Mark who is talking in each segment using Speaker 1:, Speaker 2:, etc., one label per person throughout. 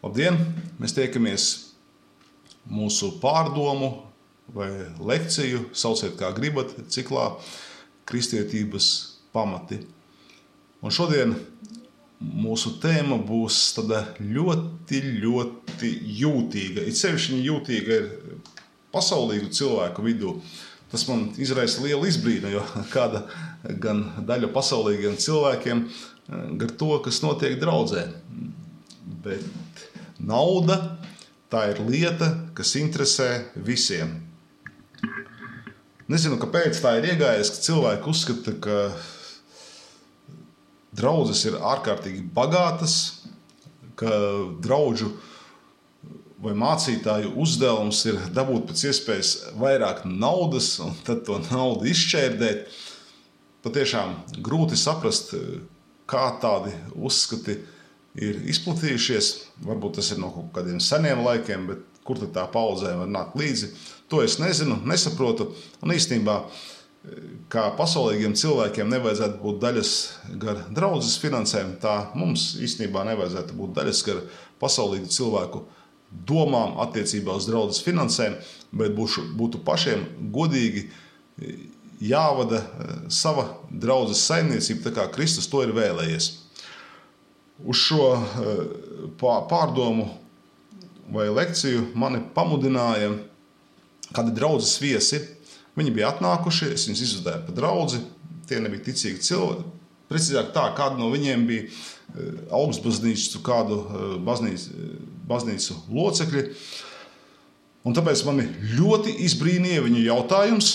Speaker 1: Labdien! Mēs tiekamies mūsu pārdomu vai lekciju, sauciet kā gribat, ciklā Kristietības pamati. Un šodien mūsu tēma būs tāda ļoti jūtīga. It sevišķi viņa jūtīga ir pasaulīgu cilvēku vidū. Tas man izraisa lielu izbrīnu, jo kāda gan daļa pasaulīgiem cilvēkiem gar to, kas notiek draudzē. Bet nauda, tā ir lieta, kas interesē visiem. Nezinu, kāpēc tā ir iegājies, ka cilvēki uzskata, ka draudzes ir ārkārtīgi bagātas, ka draudžu vai mācītāju uzdevums ir dabūt pēc iespējas vairāk naudas un tad to naudu izšķērdēt. Patiešām grūti saprast, kā tādi uzskati ir izplatījušies. Varbūt tas ir no kaut kādiem seniem laikiem, bet kur tad tā paudzē var nākt līdzi? To es nezinu, nesaprotu. Un īstenībā, kā pasaulīgiem cilvēkiem nevajadzētu būt daļas gar draudzes finansēm, tā mums īstenībā nevajadzētu būt daļas gar pasaulīgu cilvēku domām attiecībā uz draudzes finansēm, bet būtu pašiem godīgi jāvada sava draudzes saimniecība, tā kā Kristus to ir vēlējies. Uz šo pārdomu vai lekciju mani pamudināja kādi draudzes viesi. Viņi bija atnākuši, es viņus izvadīju pa draudzi, tie nebija ticīgi cilvēki. Precīzāk tā, kādi no viņiem bija augstbaznīcu, kādu baznīcu locekļi. Un tāpēc mani ļoti izbrīnīja viņu jautājums,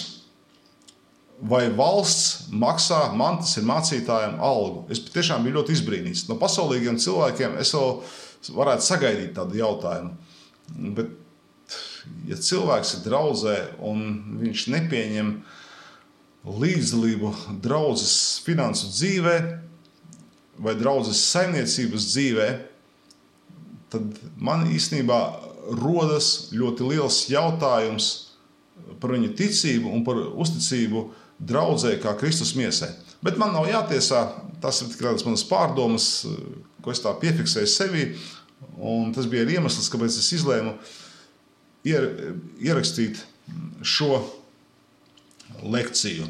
Speaker 1: vai valsts maksā man, tas ir mācītājiem, algu. Es tiešām biju ļoti izbrīnīts. No pasaulīgiem cilvēkiem es vēl varētu sagaidīt tādu jautājumu. Bet, ja cilvēks ir draudzē un viņš nepieņem līdzdalību draudzes finansu dzīvē vai draudzes saimniecības dzīvē, tad man īstenībā rodas ļoti liels jautājums par viņu ticību un par uzticību draudzē kā Kristus miesai. Bet man nav jātiesā, tas ir tikai manas pārdomas, ko es tā piefiksēju sevī, un tas bija iemesls, kāpēc es izlēmu ierakstīt šo lekciju.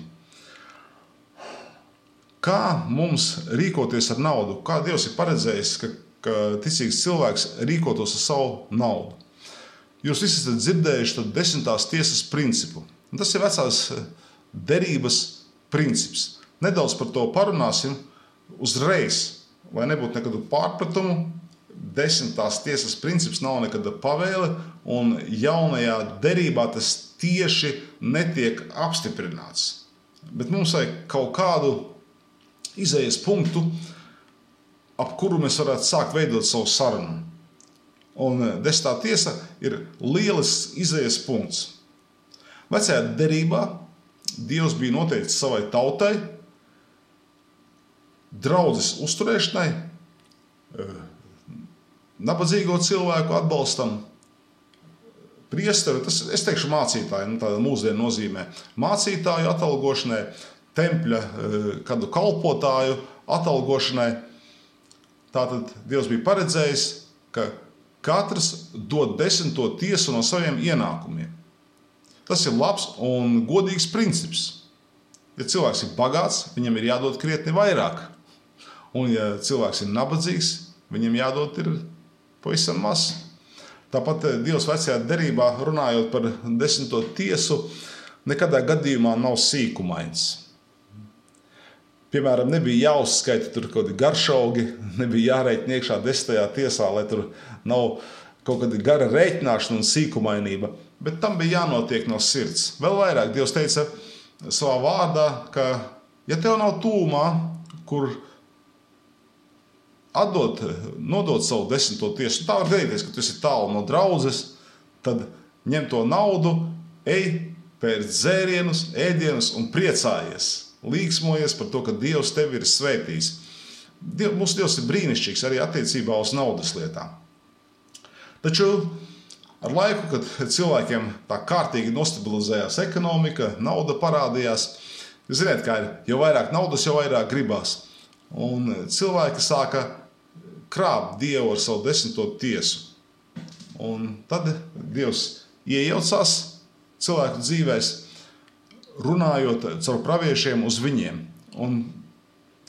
Speaker 1: Kā mums rīkoties ar naudu? Kā Dievs ir paredzējis, ka ticīgs cilvēks rīkotos ar savu naudu? Jūs visi esat dzirdējuši 10. tiesas principu. Un tas ir vecās derības princips. Nedaudz par to parunāsim uzreiz, lai nebūtu nekādu pārpratumu. 10. tiesas princips nav nekāda pavēle, un jaunajā derībā tas tieši netiek apstiprināts. Bet mums vajag kaut kādu izējas punktu, ap kuru mēs varētu sākt veidot savu sarunu. Un 10. tiesa ir lielisks izējas punkts. Vecajā derībā Dievs bija noteicis savai tautai, draudzes uzturēšanai, nabadzīgo cilvēku atbalstam, priesteri, tas es teikšu mācītāju, tāda mūsdienu nozīmē, mācītāju atalgošanai, tempļa kādu kalpotāju atalgošanai. Tātad Dievs bija paredzējis, ka katrs dod 10. tiesu no saviem ienākumiem. Tas ir labs un godīgs princips. Ja cilvēks ir bagāts, viņam ir jādod krietni vairāk. Un ja cilvēks ir nabadzīgs, viņam jādod ir pavisam maz. Tāpat Dievs vecajā derībā, runājot par 10. tiesu, nekadā gadījumā nav sīkumains. Piemēram, nebija jāuzskaita tur kaut kādi garšaugi, nebija jārēķina iekšā 10. tiesā, lai tur nav kaut kāda gara rēķināšana un sīkumainība, bet tam bija jānotiek no sirds. Vēl vairāk Dievs teica savā vārdā, ka ja tev nav tūmā, kur nodot savu 10. tiesu, tā var gadīties, ka tu esi tālu no draudzes, tad ņem to naudu, ej, pērc dzērienus, ēdienus un priecājies. Līksmojies par to, ka Dievs tevi ir svētījis. Mūsu Dievs ir brīnišķīgs arī attiecībā uz naudas lietām. Taču ar laiku, kad cilvēkiem tā kārtīgi nostabilizējās ekonomika, nauda parādījās, jūs zināt, kā ir, jo vairāk naudas, jo vairāk gribās. Un cilvēki sāka krāpt Dievu ar savu 10. tiesu. Un tad Dievs iejaucās cilvēku dzīvēs, runājot caur praviešiem uz viņiem. Un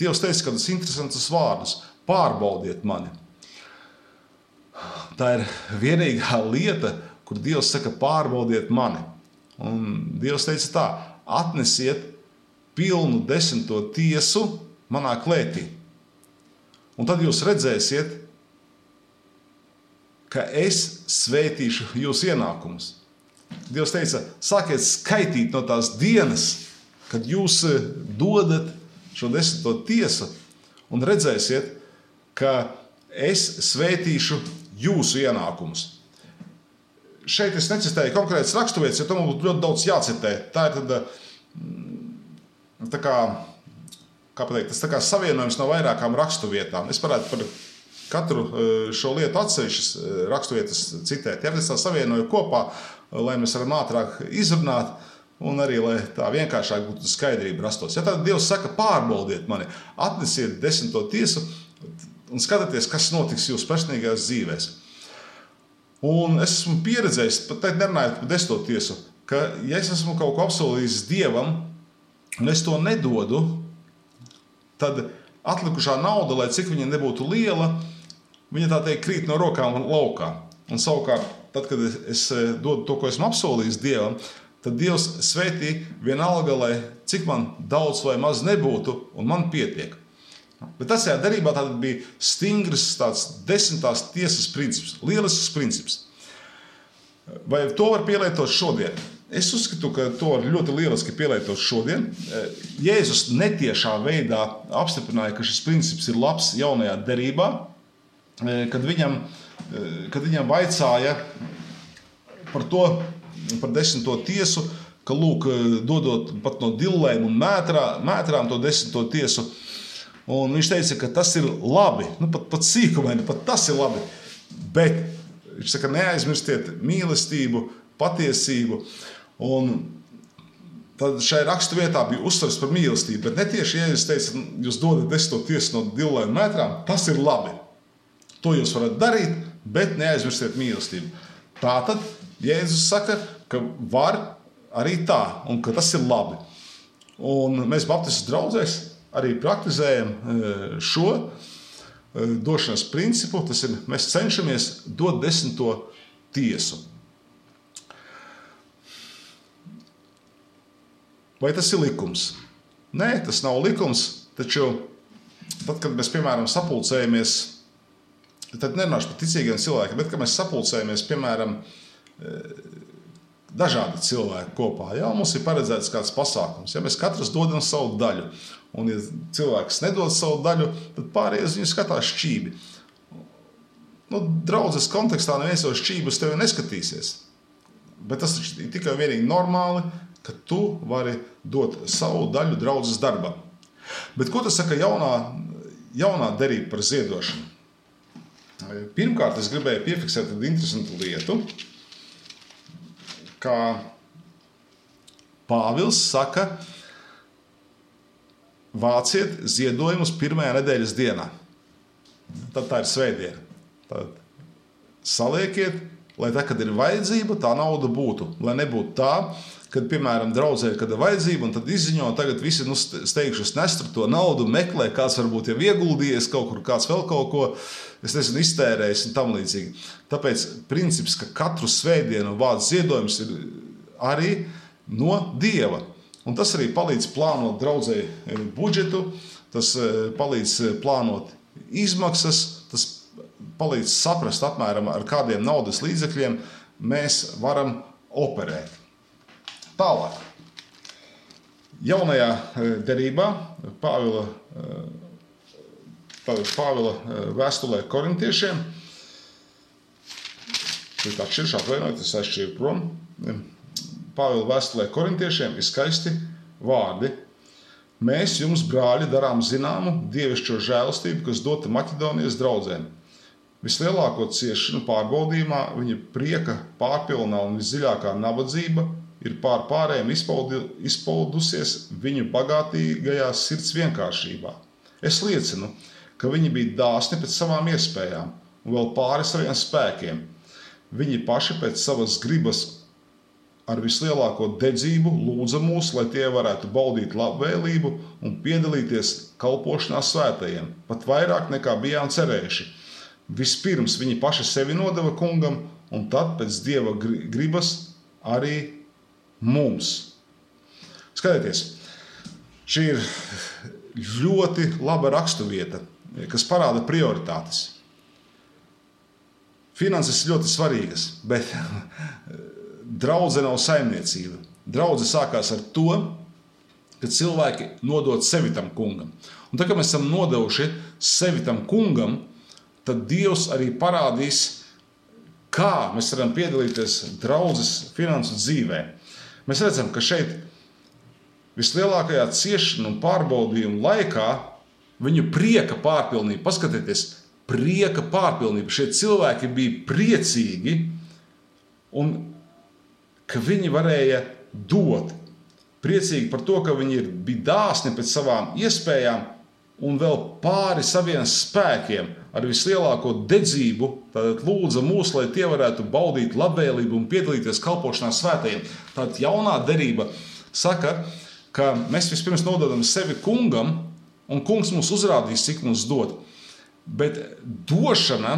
Speaker 1: Dievs teica kādus interesantus vārdus: pārbaudiet mani. Tā ir vienīgā lieta, kur Dievs saka: pārbaudiet mani. Un Dievs teica tā: atnesiet pilnu 10. tiesu manā klētī. Un tad jūs redzēsiet, ka es svētīšu jūsu ienākumus. Dievs teica: sākiet skaitīt no tās dienas, kad jūs dodat šo 10. tiesu, un redzēsiet, ka es svētīšu jūsu ienākumus. Šeit es necitēju konkrētas raksturvietas, jo tam būtu ļoti daudz jācitē. Tā ir tad, tas tā kā savienojums no vairākām raksturvietām. Es varētu par katru šo lietu atsevišķas raksturvietas citēt. Ja es tā savienoju kopā, lai mēs varam ātrāk izrunāt, un arī, lai tā vienkāršāk būtu skaidrība rastos. Ja tad Dievs saka: pārbaudiet mani, atnesiet 10. tiesu un skatieties, kas notiks jūsu personīgajās dzīvēs. Un es esmu pieredzējis, pat nerunājot par 10. tiesu, ka ja es esmu kaut ko apsolījis Dievam, un es to nedodu, tad atlikušā nauda, lai cik viņa nebūtu liela, viņa tā teikt krīt no rokām laukā. Un savukārt, tad, kad es dodu to, ko esmu apsolījis Dievam, tad Dievs svētī vienalga, lai cik man daudz vai maz nebūtu, un man pietiek. Bet tas darbībā tātad bija stingrs tāds 10. tiesas princips, lielisks princips. Vai to var pielietot šodien? Es uzskatu, ka to var ļoti lieliski pielietot šodien. Jēzus netiešā veidā apstiprināja, ka šis princips ir labs jaunajā derībā, kad viņam vaicāja par 10. tiesu, ka lūk, dodot pat no dillēm un mētrām to 10. tiesu. Un viņš teica, ka tas ir labi, pat sīkumaini, pat tas ir labi. Bet viņš saka: neaizmirstiet mīlestību, patiesību. Un tad šai raksturvietā bija uzsvars par mīlestību, bet ne tieši Jēzus teica: jūs dodat 10. tiesu no dillēm un mētrām, tas ir labi. To jūs varat darīt, bet neaizmirstiet mīlestību. Tātad Jēzus saka, ka var arī tā, un ka tas ir labi. Un mēs Baptistu draudzēs arī praktizējam šo došanas principu. Tas ir, mēs cenšamies dot 10. tiesu. Vai tas ir likums? Nē, tas nav likums, taču tad, kad mēs, piemēram, sapulcējamies, tad nerunāšu par ticīgiem cilvēkiem, bet, kad mēs sapulcējamies, piemēram, dažādi cilvēki kopā, mums ir paredzēts kāds pasākums, mēs katrs dodam savu daļu. Un, ja cilvēks nedod savu daļu, tad pārējais viņu skatās šķībi. Draudzes kontekstā neviens jau šķības tevi neskatīsies. Bet tas ir tikai vienīgi normāli, ka tu vari dot savu daļu draudzes darbam. Bet ko tas saka jaunā derība par ziedošanu? Pirmkārt, es gribēju piefiksēt tādu interesantu lietu, kā Pāvils saka: vāciet ziedojumus pirmajā nedēļas dienā. Tad tā ir svētdiena. Tad saliekiet, lai tā, kad ir vajadzība, tā nauda būtu. Lai nebūtu tā, kad, piemēram, draudzē, kad ir vajadzība, un tad izziņo, tagad visi steigšus nest to naudu, meklē, kāds varbūt jau ieguldījies kaut kur, kāds vēl kaut ko, es nezinu, iztērējis un tam līdzīgi. Tāpēc princips, ka katru svētdienu vāc ziedojums ir arī no Dieva. Un tas arī palīdz plānot draudzei budžetu, tas palīdz plānot izmaksas, tas palīdz saprast apmēram, ar kādiem naudas līdzekļiem mēs varam operēt. Tālāk. Jaunajā derībā Pāvila vēstulē korintiešiem, es aizšķīru prom, Pāvila vēstulē korintiešiem ir skaisti vārdi. Mēs jums, brāļi, darām zināmu dievišķo žēlastību, kas dota Maķedonijas draudzēm. Vislielāko ciešanu pārbaudījumā viņa prieka pārpilnā un visdziļākā nabadzība ir pārējiem izpaudusies viņu bagātīgajā sirds vienkāršībā. Es liecinu, ka viņi bija dāsni pēc savām iespējām un vēl pāri saviem spēkiem. Viņi paši pēc savas gribas ar vislielāko dedzību lūdza mūs, lai tie varētu baudīt labvēlību un piedalīties kalpošanā svētajiem, pat vairāk nekā bijām cerējuši. Vispirms viņi paši sevi nodeva kungam, un tad pēc Dieva gribas arī mums. Skatieties, šī ir ļoti laba raksturvieta, kas parāda prioritātes. Finanses ir ļoti svarīgas, bet draudze nav saimniecība. Draudze sākās ar to, ka cilvēki nodod sevi tam kungam. Un tad, kad mēs esam nodevuši sevi tam kungam, tad Dievs arī parādīs, kā mēs varam piedalīties draudzes finansu dzīvē. Mēs redzam, ka šeit vislielākajā ciešanu un pārbaudījumu laikā viņu prieka pārpilnība, paskatieties, prieka pārpilnība. Šie cilvēki bija priecīgi un ka viņi varēja dot. Priecīgi par to, ka viņi bija dāsni pēc savām iespējām un vēl pāri saviem spēkiem ar vislielāko dedzību, tātad lūdza mūs, lai tie varētu baudīt labvēlību un piedalīties kalpošanā svētajiem. Tātad jaunā derība saka, ka mēs vispirms nododam sevi kungam, un kungs mums uzrādīs, cik mums dod. Bet došana,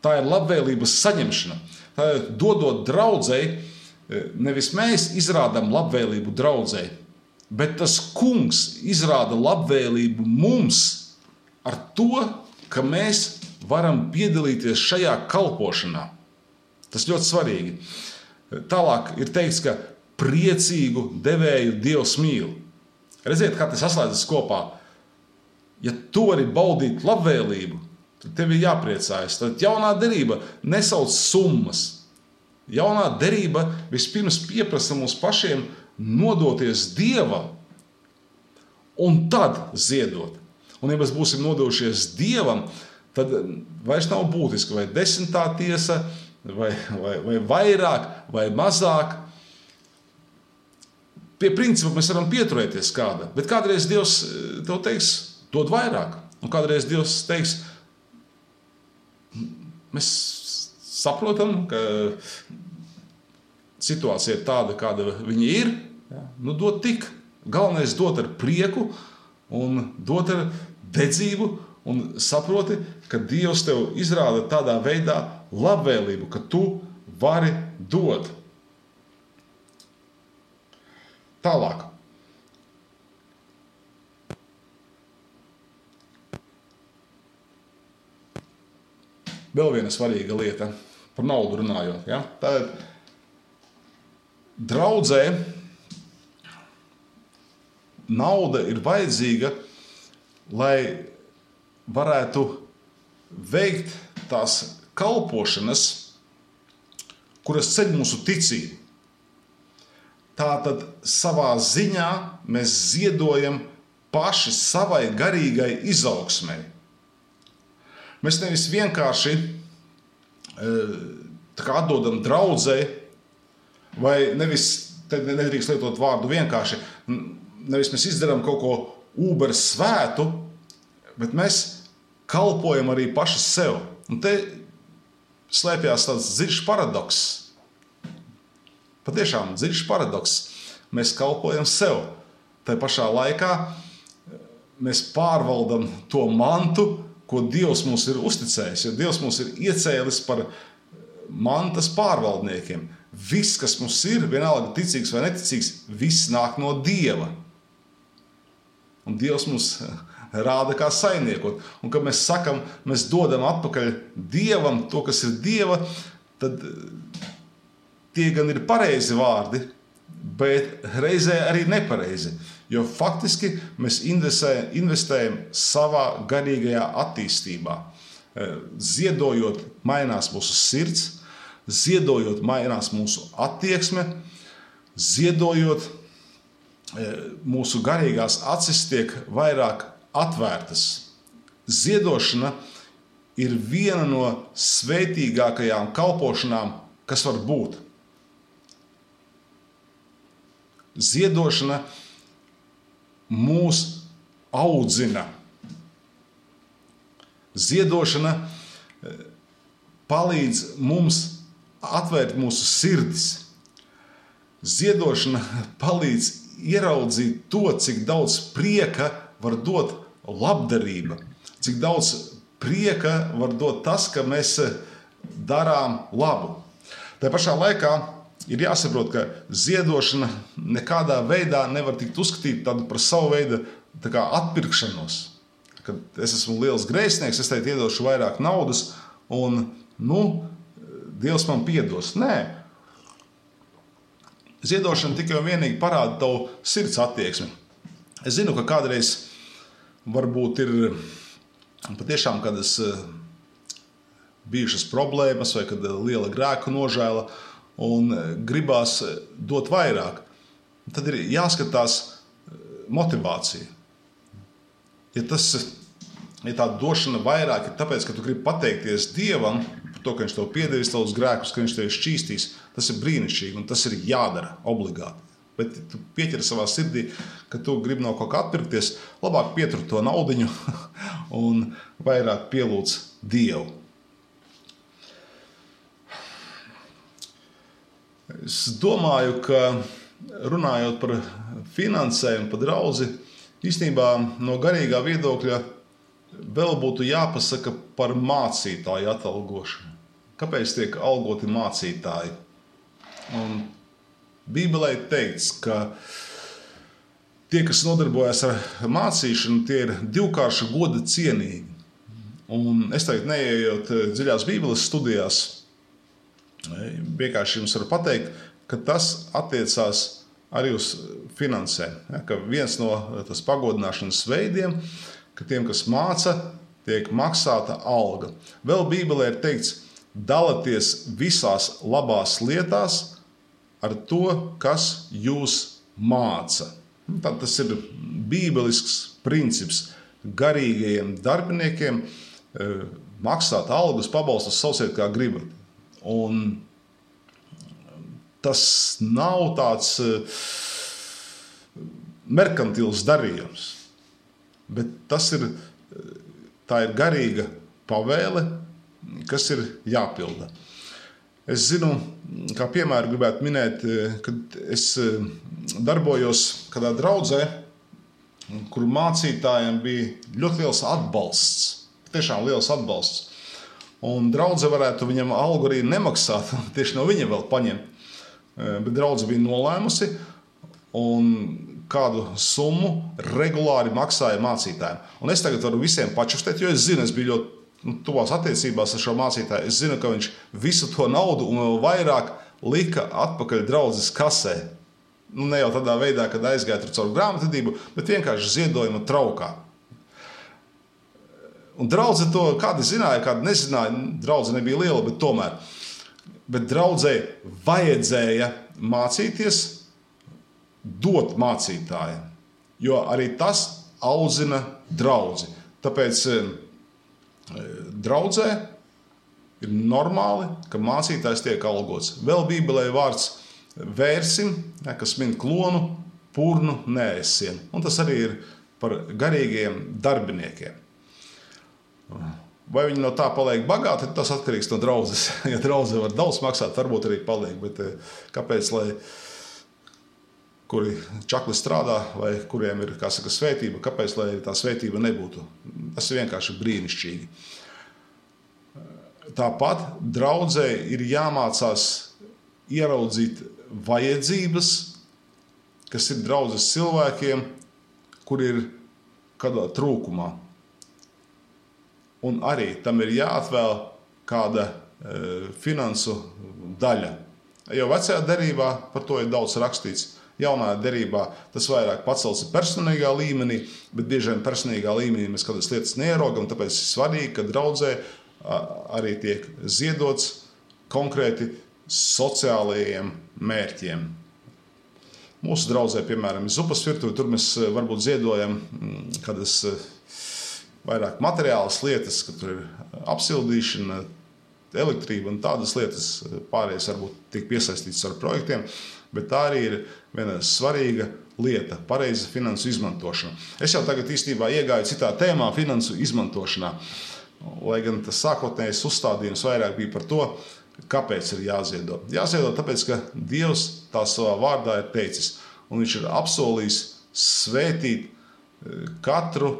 Speaker 1: tā ir labvēlības saņemšana. Tātad, dodot draudzei, nevis mēs izrādām labvēlību draudzei, bet tas kungs izrāda labvēlību mums ar to, ka mēs varam piedalīties šajā kalpošanā. Tas ļoti svarīgi. Tālāk ir teikts, ka priecīgu devēju Dievs mīl. Redziet, kā tas saslēdzas kopā. Ja tu vari baudīt labvēlību, tad tev ir jāpriecājas. Tad jaunā derība nesauc summas. Jaunā derība vispirms pieprasa mums pašiem nodoties Dievam un tad ziedot. Un ja mēs būsim nodojušies Dievam, tad vairs nav būtiski, vai 10. tiesa, vai vairāk, vai mazāk. Pie principa mēs varam pieturēties kāda, bet kādreiz Dievs tev teiks, dod vairāk. Un kādreiz Dievs teiks, mēs saprotam, ka situācija ir tāda, kāda viņa ir. Nu, dod tik. Galvenais dot ar prieku un dot ar dedzību un saproti, ka Dievs tev izrāda tādā veidā labvēlību, ka tu vari dot. Tālāk. Vēl viena svarīga lieta, par naudu runājot. Ja? Tātad draudzē nauda ir vajadzīga, lai varētu veikt tās kalpošanas, kuras ceļ mūsu ticību. Tātad savā ziņā mēs ziedojam paši savai garīgai izaugsmei. Mēs nevis vienkārši atdodam draudzei, vai nevis, te nedrīkst lietot vārdu vienkārši, nevis mēs izdarām kaut ko ūber svētu, bet mēs kalpojam arī paši sev. Un te slēpjās tāds dziļš paradoks. Patiešām dziļš paradoks. Mēs kalpojam sev. Tai pašā laikā mēs pārvaldam to mantu, ko Dievs mums ir uzticējis, jo Dievs mums ir iecēlis par mantas pārvaldniekiem. Viss, kas mums ir, vienalga ticīgs vai neticīgs, viss nāk no Dieva. Un Dievs mums rāda, kā saimniekot. Un kad mēs sakam, mēs dodam atpakaļ Dievam to, kas ir Dieva, tad tie gan ir pareizi vārdi, bet reizē arī nepareizi. Jo faktiski mēs investējam savā garīgajā attīstībā. Ziedojot, mainās mūsu sirds, ziedojot, mainās mūsu attieksme, ziedojot, mūsu garīgās acis tiek vairāk atvērtas. Ziedošana ir viena no svētīgākajām kalpošanām, kas var būt. Ziedošana mūs audzina. Ziedošana palīdz mums atvērt mūsu sirdis. Ziedošana palīdz ieraudzīt to, cik daudz prieka var dot labdarība, cik daudz prieka var dot tas, ka mēs darām labu. Tā pašā laikā ir jāsaprot, ka ziedošana nekādā veidā nevar tikt uzskatīta par savu veidu atpirkšanos. Kad es esmu liels grēsnieks, es teikt iedošu vairāk naudas un, Dievs man piedos. Nē. Ziedošana tikai un vienīgi parāda tavu sirds attieksmi. Es zinu, ka kādreiz varbūt ir patiešām kādas bijušas problēmas vai kad liela grēku nožēla un gribās dot vairāk. Tad ir jāskatās motivācija. Ja tā došana vairāk ir tāpēc, ka tu gribi pateikties Dievam par to, ka viņš tev piedevis tavus grēkus, ka viņš tev šķīstīs, tas ir brīnišķīgi un tas ir jādara obligāti. Bet tu pieķeri savā sirdī, ka tu gribi no kaut kā atpirkties, labāk pietur to naudiņu un vairāk pielūdz Dievu. Es domāju, ka runājot par finansējumu, par draudzi, īstenībā no garīgā viedokļa vēl būtu jāpasaka par mācītāju atalgošanu. Kāpēc tiek algoti mācītāji? Un Bībelē teikts, ka tie, kas nodarbojas ar mācīšanu, tie ir divkārša goda cienīgi. Un es tagad neejot dziļās Bībeles studijās, vienkārši jums varu pateikt, ka tas attiecās arī uz finansēm. Ja, ka viens no tas pagodināšanas veidiem, ka tiem, kas māca, tiek maksāta alga. Vēl Bībelē ir teikts, dalaties visās labās lietās ar to, kas jūs māca. Tad tas ir bībelisks princips garīgajiem darbiniekiem maksāt algas, pabalstus, sauciet kā gribat. Un tas nav tāds merkantils darījums, bet tā ir garīga pavēle, kas ir jāpilda. Es zinu, kā piemēru gribētu minēt, kad es darbojos kādā draudzē, kur mācītājiem bija ļoti liels atbalsts, tiešām liels atbalsts. Un draudze varētu viņam algu arī nemaksāt, tieši no viņa vēl paņemt. Bet draudze bija nolēmusi un kādu summu regulāri maksāja mācītājiem. Un es tagad varu visiem pačustēt, jo es zinu, es biju ļoti tuvās attiecībās ar šo mācītāju. Es zinu, ka viņš visu to naudu un vēl vairāk lika atpakaļ draudzes kasē. Ne jau tādā veidā, kad aizgāja tur caur grāmatvedību, bet vienkārši ziedojuma traukā. Un draudze to kādi zināja, kādi nezināja. Draudze nebija liela, bet tomēr. Bet draudzei vajadzēja mācīties, dot mācītājiem, jo arī tas audzina draudzi. Tāpēc draudzē ir normāli, ka mācītājs tiek algots. Vēl Bībelē vārds vērsim, kas min klonu, purnu, neēsien. Un tas arī ir par garīgiem darbiniekiem. Vai viņi no tā paliek bagāti, tas atkarīgs no draudzes. Ja draudze var daudz maksāt, varbūt arī paliek, bet kāpēc, lai kuri čakli strādā vai kuriem ir, kā saka, svētība, kāpēc, lai tā svētība nebūtu? Tas ir vienkārši brīnišķīgi. Tāpat draudzē ir jāmācās ieraudzīt vajadzības, kas ir draudzes cilvēkiem, kur ir kādā trūkumā. Un arī tam ir jāatvēl kāda finansu daļa. Jo vecajā derībā par to ir daudz rakstīts. Jaunā derībā tas vairāk pacelts personīgā līmenī, bet bieži vien personīgā līmenī mēs kādas lietas neierogam, tāpēc ir svarīgi, ka draudzē arī tiek ziedots konkrēti sociālajiem mērķiem. Mūsu draudzē, piemēram, ir zupas virtuve, tur mēs varbūt ziedojam kādas vairāk materiālas lietas, ka tur ir apsildīšana, elektrība un tādas lietas, pārējais varbūt tiek piesaistīts ar projektiem, bet tā arī ir viena svarīga lieta, pareiza finansu izmantošana. Es jau tagad īstenībā iegāju citā tēmā finansu izmantošanā. lai gan tas sākotnējais uzstādījums vairāk bija par to, kāpēc ir jāziedo. Jāziedo tāpēc, ka Dievs tā savā vārdā ir teicis, un viņš ir apsolījis svētīt katru,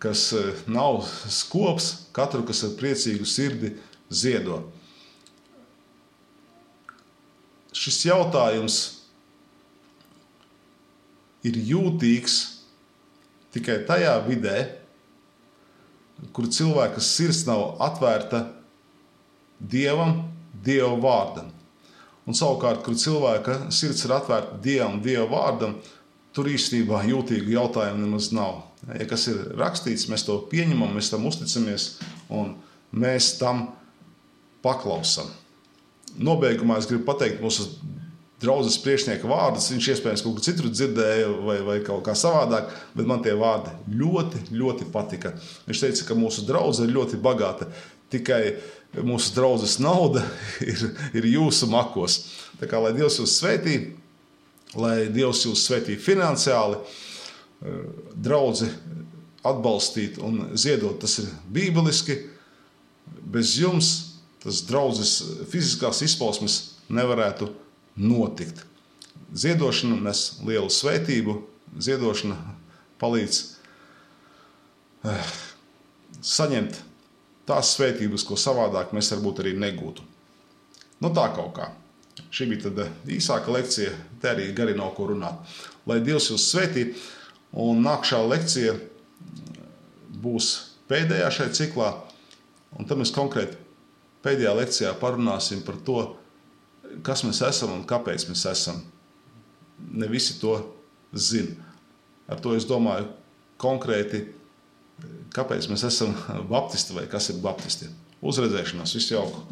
Speaker 1: kas nav skops, katru, kas ar priecīgu sirdi ziedo. Šis jautājums ir jūtīgs tikai tajā vidē, kur cilvēka sirds nav atvērta Dievam, Dieva vārdam. Un savukārt, kur cilvēka sirds ir atvērta Dievam, Dieva vārdam, tur īstenībā jūtīgu jautājumu nemaz nav. Ja kas ir rakstīts, mēs to pieņemam, mēs tam uzticamies un mēs tam paklausam. Nobeigumā es gribu pateikt mūsu draudzes priekšnieka vārdus. Viņš iespējams kaut kur citur dzirdēja vai kaut kā savādāk, bet man tie vārdi ļoti, ļoti patika. Viņš teica, ka mūsu draudze ir ļoti bagāta, tikai mūsu draudzes nauda ir jūsu makos. Tā kā lai Dievs jūs svētī, lai Dievs jūs svētī finansiāli, draudzi atbalstīt un ziedot, tas ir bībeliski. Bez jums tas draudzes fiziskās izpausmes nevarētu notikt. Ziedošana nes lielu svētību, ziedošana palīdz saņemt tās svētības, ko savādāk mēs varbūt arī negūtu. Nu tā kaut kā. Šī bija tad īsāka lekcija, te arī gari nav ko runāt. Lai Dievs jūs svētī, un nākšā lekcija būs pēdējā šai ciklā, un tad mēs konkrēti pēdējā lekcijā parunāsim par to, kas mēs esam un kāpēc mēs esam. Ne visi to zina. Ar to es domāju konkrēti, kāpēc mēs esam baptisti vai kas ir baptisti. Uz redzēšanos, visu jauku!